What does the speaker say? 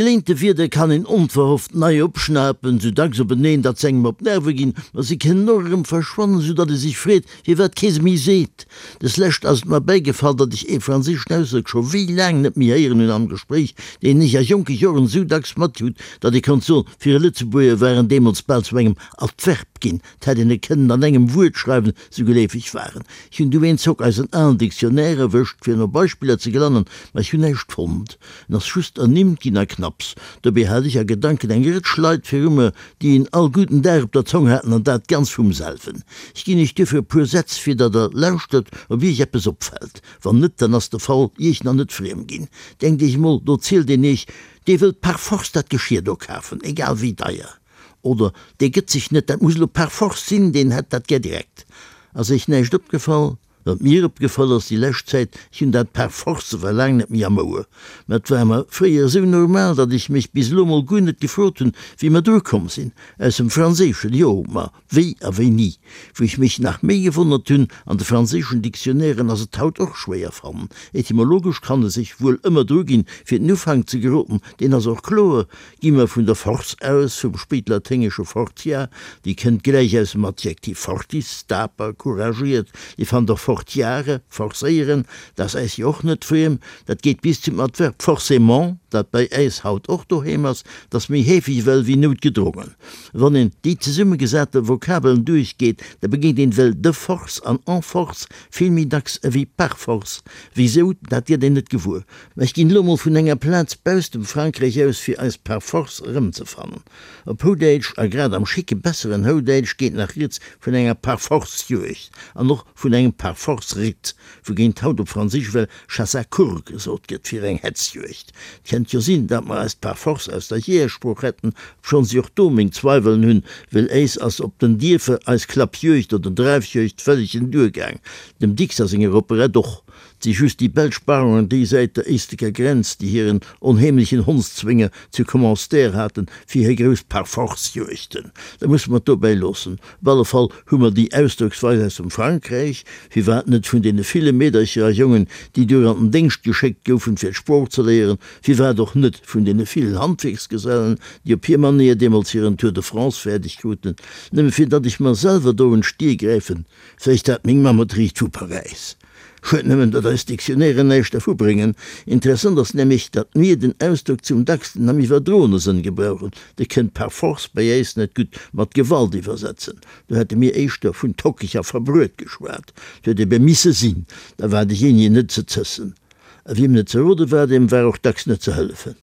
Geléinte Wierder kann een onverhofft nei opschnapen, sou dacks openeen, datt s'engem op d'Nerve ginn, ma se kënnen och erëm verschwannen, sou datt ee sech freet, firwat kee se méi seet. Des Lescht ass et mer bäigefall, datt ech ee franséischen Ausdrock scho wéi laang net méi héieren hunn am Gespréich, deen ech a jonke Joren sou dacks matkrut, datt ee konnt soen, fir e Lëtzebuerger war en deemools bal zu engem Adverb ginn, 't hätt een e kënnen an engem Wuert schreiwen, sou geleefeg war en. Ech hunn du eenzock eisen alen Dictionnaire erwëscht, fir no Beispiller ze gelannen, ma ech hunn näischt fonnt. En ass just ernimmt ginn a knapps. Dobäi hat ech a Gedanken eng Rëtsch Leit viru mer, déi en all gudden Dag op der Zong haten, an dat ganz vum selwen. Ech ginn iech duerfir e puer Sätz, fir datt der lauschtert, ob iech eppes opfält. Wann net, dann ass de Fall iech nach net friem ginn. Denkt iech emol, do zielt een iech, dee wëllt par force dat Geschir do kafen, egal wéi deier. Oder dee gëtt sech net, dat muss elo par force sinn, deen hätt dat gär direkt. Ass iech näischt opgefall? Wat mir opgefall ass déi lescht Zäit, ech hunn dat par force war laang net méi am Ouer, mä et war mer fréier esou normal, datt ech mech bis elo mol guer net gefrot hunn, wéi mer dru komm sinn. Aus dem Franséischen, jo, ma wéi a wéini? Wou ech mech nach méi gewonnert hunn, an de franséischen Dictionnairen ass et haut och schwéier fannen. Etymologesch kann e sech wuel ëmmer dru ginn, fir den Ufank ze geroden, deen ass och kloer, Gi mer vun der Force aus, vum spéitlaténgesche fortia, déi kënnt gläich aus dem Adjektiv fortis, daper, couragiert. Dir fannt och fortiare, forcéieren, dat ass äis jo och net friem. Dat geet bis zum Adverb forcément, dat bei äis haut och doheem ass, dat ass méi heefeg ewell wéi noutgedrongen. Wann een déi zesummegesate Vokabeln duerchgeet, da begéint een ewell de force an en force vill méi dacks ewéi par force. Wisou, dat gëtt een net gewuer. Mä ech ginn elo mol vun enger Plaz bausst dem Frankräich aus, fir eis par force erëmzefannen. Op Houdäitsch, a grad am schicke besseren Houdäitsch, geet nach rieds vun enger Parforce-Juegd an och vun engem Parforce-Ritt, wougéint haut op Franséisch well Chasse à courre gesot gëtt fir eng Hetzjuegd. Et kennt jo sinn, datt mer eis par force aus der Jeeërsprooch hätten, obschonns ech och do meng Zweiwelen hunn, well éis ass op den Dierfer eis Klappjuegd oder Dreifjuegd vëllegen duergaang, dem Dicks a senger Operett och. 't si just déi belsch Baronen déi Säit der éistleker Grenz, déi hiren onheemlechen Hondszwénger zu Commenster haten, fir hir grouss Parforce-Juegten. Da musse mer et dobäi loossen. Op alle Fall hu mer déi Ausdrocksweis aus dem Frankräich, firwat net vun deene ville Meedercher a Jongen, déi duer an den Déngscht geschéckt goufen, fir d'Sprooch ze léieren, firwat och net vun deene villen Handwierksgesellen, déi op hir Manéier deemools hiren Tour de France fäerdeg kruten, nëmme fir datt ech mer selwer do un d'Stier gräifen, vläicht hat meng Mamm et riicht vu Paräis. Schued nëmmen, datt eis Dictionnairen näischt dervu bréngen. Interessant ass nämlech, datt mir den Ausdrock zum dacksten am iwwerdroene Sënn gebrauchen. De kënnt par force bei äis net gutt mat Gewalt iwwersetzen. Do hätte mir éischter vun tockeg a verbruet geschwat. Et huet ebe misse sinn, da war dejéinegen net ze zëssen. A wiem net ze rode war, deem war och dacks net ze hëllefen.